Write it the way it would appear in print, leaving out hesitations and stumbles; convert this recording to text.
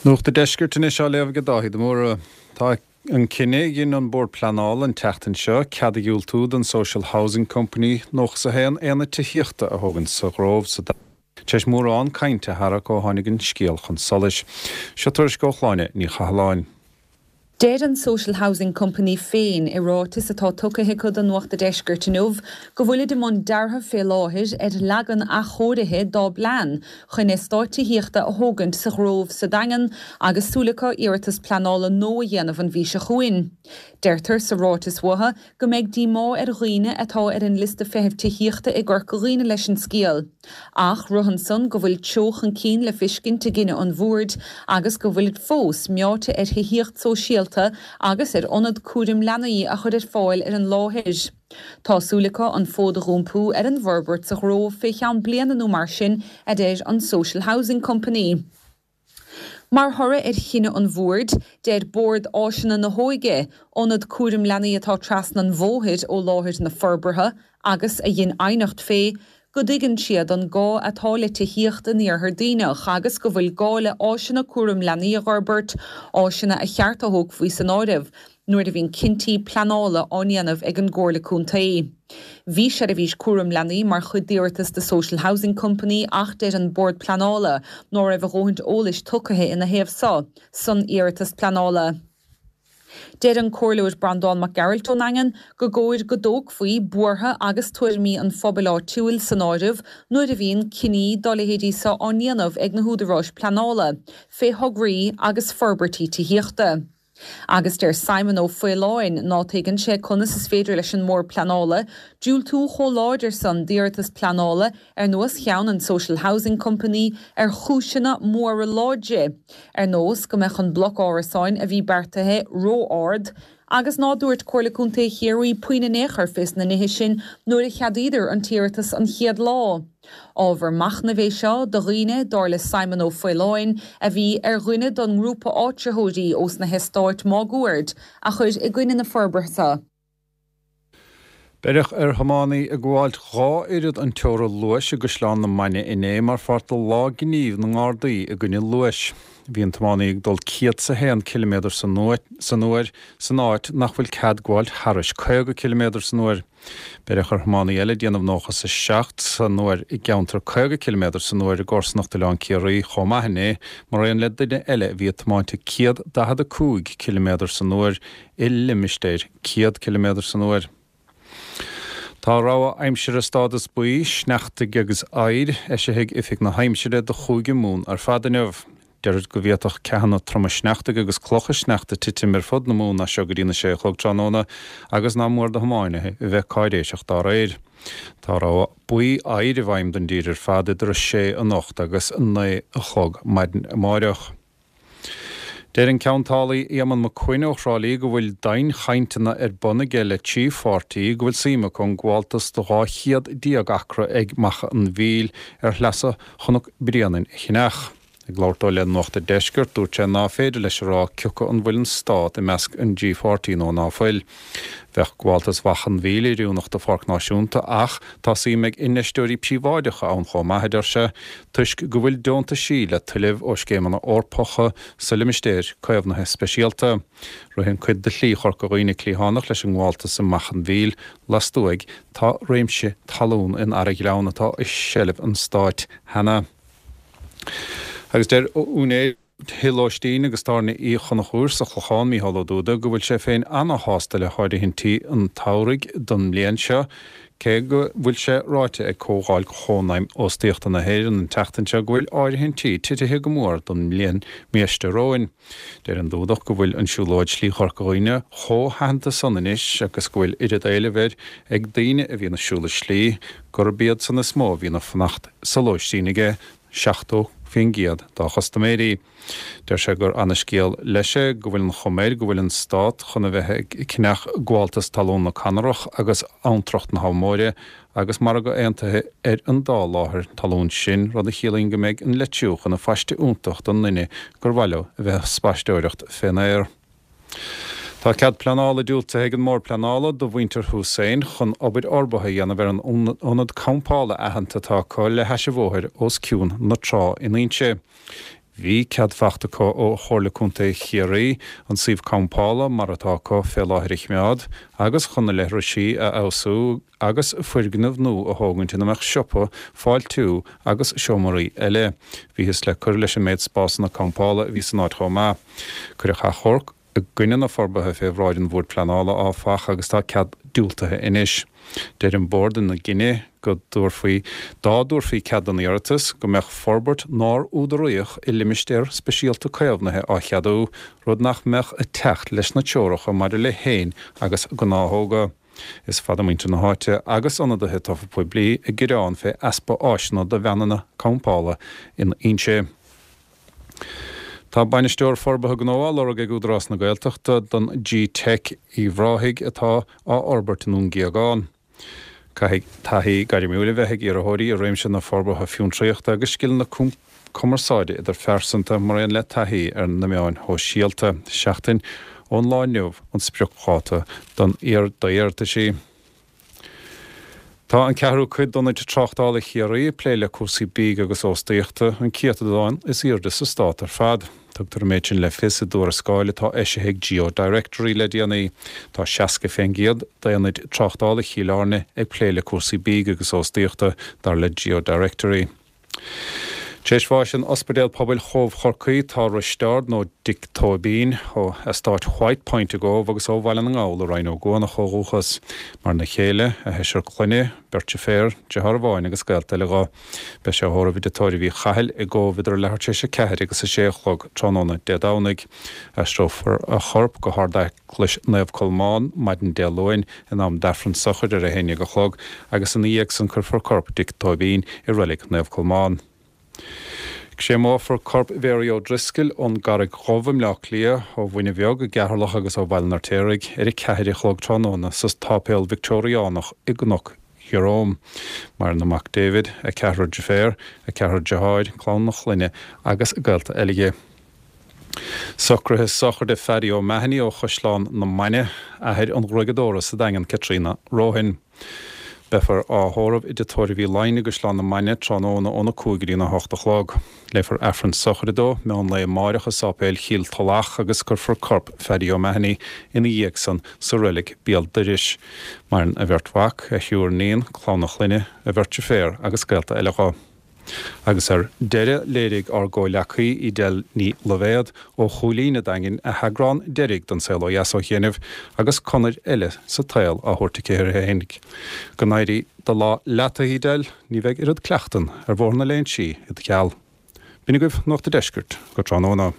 Nuacht an Deiscirt anois á léamh ag Dáithí de Mórdha. Tá an cinneadh a dhein an Bord Pleanála an tseachtain seo cead a dhiúltú don Social Housing Company 91 aonad tithíochta a thógaint sa Ghrove sa tar éis mórán cainte a tharrac ó tháinig an scéal chun solais. Seo tuairisc ó Shláine Ní Chathalláin. Deir an Social Housing Company féin i ráiteas atá tugtha acu do Nuacht a' Deiscirt inniu go bhfuilid i mbun deartha fé láthair ar leagan athchóirithe dá bplean chun eastát tithíochta a thógaint sa Ghrove sa Daingean agus súil acu iarratas pleanála nua a dhéanamh an mhí seo chugainn. Deirtear sa ráiteas uathu go mbeidh díomá ar dhaoine atá ar an liosta feithimh tithíochta i gCorca Dhuibhne leis an scéal. Ach ritheann san go bhfuil treo chun cinn le fiscint i gcinneadh an bhoird agus go bhfuilid fós meáite ar thithíocht sóisialta agus ar ionad cúraim leanaí a chur ar fáil ar an láthair. Tá súil acu an fód a dh'iompú ar an bhforbairt sa Ghrove fé cheann bliana nó mar sin, a deir an Social Housing Company. Mar thoradh ar chinneadh an bhoird, deir Bord Áiseanna na hÓige, ionad cúraim leanaí atá trasna an bhóthair ó láthair na forbartha agus a dhein aighneacht fé, go dtuigeann siad an gá atá le tithíocht in Iarthar Duibhneach agus go bhfuil gá le áiseanna cúraim leanaí a dh'fhorbairt, áiseanna a cheart a thógfaí san áireamh nuair a bhíonn cinntí pleanála á ndéanamh ag an gComhairle Contae. Bhí seirbhís cúram leanaí mar chuid d'iarratas The Social Housing Company ach deir an Bord Pleanála ná raibh a dhóthaint eolais tugtha ina thaobh so san iarratas pleanála. Deir an Comhairleoir Breandán Mac Gearailt ón nDaingean go gcóir go dtógfaí buartha agus tuairimí an phobail áitiúil san áireamh nuair a bhíonn cinní dá leithéidí so á ndéanamh ag na húdaráis pleanála fé thograí agus forbairtí tithíochta. Agus deir Simon Ó Faoláin ná tuigeann sé conas is féidir leis an mBord Pleanála diúltú chomh láidir san d'iarratas pleanála ar nós cheann an Social Housing Company ar chúiseanna móra láidre, ar nós go mbeadh an bloc árasáin a bhí beartaithe ró-ard, agus ná dúirt Comhairle Contae Chiarraí puinn in aon chor fés na nithe sin nuair a cheadaíodar an t-iarratas an chéad lá. Ábhar machnaimh é seo do dhaoine, dar le Simon Ó Faoláin, a bhí ar dhuine don ngrúpa áitritheoirí ós na heastáit máguaird a chuir i gcoinne na forbartha. Beireadh ar thiománaí ag gabháilt 2 oiread an teora luais i gCaisleán na Mainge inné mar pháirt de Lá Gnímh na nGardaí i gcoinne Luais. Bhí an tiománaí ag dul 101 ciliméadar san uair san áit nach bhfuil cead gabháilt thairis 50 ciliméadar san uair. Beireadh ar thiománaí eile ag déanamh 97 san uair i gceantar 50 ciliméadar san uair i gcomharsanacht Oileán Ciarraí chomh maith inné, maraon le duine eile a bhí ag tiomáint ag 145 ciliméadar san uair i limistéir 100 ciliméadar san uair. Tá rabhadh aimsire stádas buí, sneachtaidh agus oighir, eisithe ag Oifig na hAimsire do Chúige Mumhan ar fad inniu. Deirtear go bhféadfadh ceathanna troma sneachtaidh agus clocha sneachta titim ar fud na Mumhan as seo go dtína sé a chlog tráthnóna agus nach mór do thiománaithe a bheith cáiréiseach dá réir. Tá rabhadh buí oighir i bhfeidhm don dtír ar fad idir 6 anocht agus 9 a chlog maidin amáireach. Deir an ceantálaí Éamonn Mac Coinn ó Thrá Lí go bhfuil dianchainteanna ar bun aige le trí pháirtí go bhfuil suim acu an gabháltas de 12 chéad acra ag Macha an Mhíl ar shleasa Chnoc Bréanainn a cheannach. Ag labhairt dó le Nuacht a' Deiscirt, dúirt sé ná féidir leis a rá cioca an bhfuil an Stát i measc an dtrí pháirtí nó ná fuil. Bheadh gabháltas Mhacha an Mhíl oiriúnach do pháirc náisiúnta ach tá suim ag infheisteoirí príobháideacha ann chomh maith, a deir sé, toisc go bhfuil deontaisí le tuilleamh ó scéimeanna Eorpacha sa limistéir caomhnaithe speisialta. Ritheann cuid de Shlí Chorca Dhuibhne cliathánach leis an ngabháltas i Macha an Mhíl. Lastuaidh tá réimse talún in Araghleann atá i seilbh an Stáit cheana. Agus deir úinéir thigh lóistín agus tábhairne Uí Chonchúir sa Chlochán, Mícheál Ó Dúda, go bhfuil sé féin ana-shásta le háirithintí an tsamhraidh don mbliain seo, cé go bhfuil sé ráite ag Comhdháil Chónaidhm Óstaíochta na hÉireann an tseachtain seo go bhfuil áirithintí titithe go mór don mbliain biaiste romhainn. Deir an Dúdach go bhfuil an siúlóid Slí Chorca Dhuibhne chomh haitheanta san anois agus go bhfuil oiread éilimh air ag daoine a bhíonn ag siúl an slí gurb iad san is mó a bhíonn ag fanacht sa lóistín aige, 70% dá chustaiméirí. Deir sé gur ana-scéal leis é go bhfuil an chuma air go bhfuil an Stát chun a bheith ag ceannach gabháltas talún na Conarach agus Abhantrach na hAbha Móire agus margadh aontaithe ar an dá láthair talún sin, rud a chiallaíonn go mbeidh an Leitriúch ina phaiste iontach don nduine gur mhaith leo a bheith ag spaisteoireacht fén aer. Tá cead pleanála diúltaithe ag an mBord Pleanála do mhuintir Hussain chun obair fhorbartha a dhéanamh ar an ionad campála aitheanta atá acu le hais an bhóthair os cionn na trá in Inse. Bhí cead fachta acu ó Chomhairle Contae Chiarraí an suíomh campála mar atá acu fé láthair a chimeád agus chun na leithrisí a fheabhsú agus foirgneamh nua a thógaint ina mbeadh siopa, fáiltiú agus seomraí eile. Bhíothas le cur leis an méid spásanna campála a bhí san áit chomh maith. Cuireadh achomharc i gcoinne na forbartha fé bhráid an Bhoird Pleanála, áfach, agus tá cead diúltaithe anois. Deir an Bord ina gcinneadh go dtabharfaí, dá dtabharfaí cead don iarratas, go mbeadh forbairt nár údaraíodh i limistéar speisialta caomhnaithe á cheadú, rud nach mbeadh ag teacht leis na treoracha maidir le héin agus gnáthóga. Is fada muintir na háite agus ionadaithe tofa poiblí ag gearán fé easpa áiseanna do veaineanna campála in Inse. Tá Bainisteoir Forbartha Gnó á lorg ag Údarás na Gaeltachta don G-Teic Uíbh Ráthaigh atá á fhorbairt i nDún Géagán. Caithfidh taithí gairmiúil a bheith ag iarrthóirí i réimse na forbartha fiontraíochta agus scileanna cumarsáide idirphearsanta mar aon le taithí ar na meáin shóisialta. Seachtain ón lá inniu an spriocdháta don d'iarrataisí. Tá an ceathrú cuid d'ionaid tráchtála Chiarraí ag plé le cúrsaí bídh agus óstaíochta, an céatadán is airde sa stát ar fad. Tugtar an méid sin le fios i dtuarascáil atá eisithe ag GeoDirectory le déanaí. Tá 60 fén gcéad d'aonaid tráchtála Chill Airne ag plé le cúrsaí bídh agus óstaíochta, dar le GeoDirectory. Tar éis bháis in Ospidéal Pobail Chóbh Chorcaí tá Risteárd, nó Dick Tóibín, ó eastát White Point i gCóbh agus ó Bhaile na nGall i Rinn Ó gCuanach ó dhúchas. Maireann a chéile, a sheisear clainne, beirt deirféar, deartháir amháin agus gaolta eile dho. Beidh sé á thórramh i dTigh Tórraimh Uí Chathail i gCóbh idir leathuair tar éis a ceathair agus a sé a chlog tráthnóna Dé Domhnaigh. Aistreofar a chorp go hArd-Eaglais Naomh Colmán maidin Dé Luain in am d'Aifreann sochair ar a haon dhéag a chlog agus ina dhiaidh san cuirfear corp Dick Tóibín i Reilig Naomh Colmán. Créamófar corp Mhary O'Driscoll ón gCarraig Dhubh i mBleá Cliath, ó Mhuine Bheag i gCeatharlach agus ó Bhaile an Fheirtéaraigh ar a ceathair a chlog tráthnóna sa tSáipéal Victeoiriánach i gCnoc Jerome. Maireann a mac David, a ceathrar deirféar, a ceathrar deartháir, clann a clainne agus gaolta eile dhi. Socruithe sochraide Phaddy O'Mahony ó Chaisleán na Mainge, athair an ghruaigeadóra sa Daingean Caitríona Rohan. Beifear á thórramh i dTigh Tórraimh Uí Laighin i gCaisleán na Mainge tráthnóna óna 5 go dtí na 8 a chlog. Léifear Aifreann sochraide dó meán lae amáireach i Sáipéal Chill Tulach agus cuirfear corp Phaddy O'Mahony ina dhiaidh san sa reilig béal dorais. Maireann a bheirt mhac, a thriúr níon, clann a chlainne, a bheirt deirféar agus gaolta eile dho. Agus ar deireadh, léirigh ár gcomhleacaí Edel Ní Loibhéad ó Chúilín a' Daingin a heagrán deiridh den Saol Ó Dheas ó chianaibh agus conair eile sa tsaol á thabhairt aici uirthi fhéinig. Go n-éirí do lá leat, a Edel, ní bheidh oiread cleachtan ar Bhóthar na Léinsí i do sheal. B'in agaibh Nuacht a' Deiscirt go tráthnóna.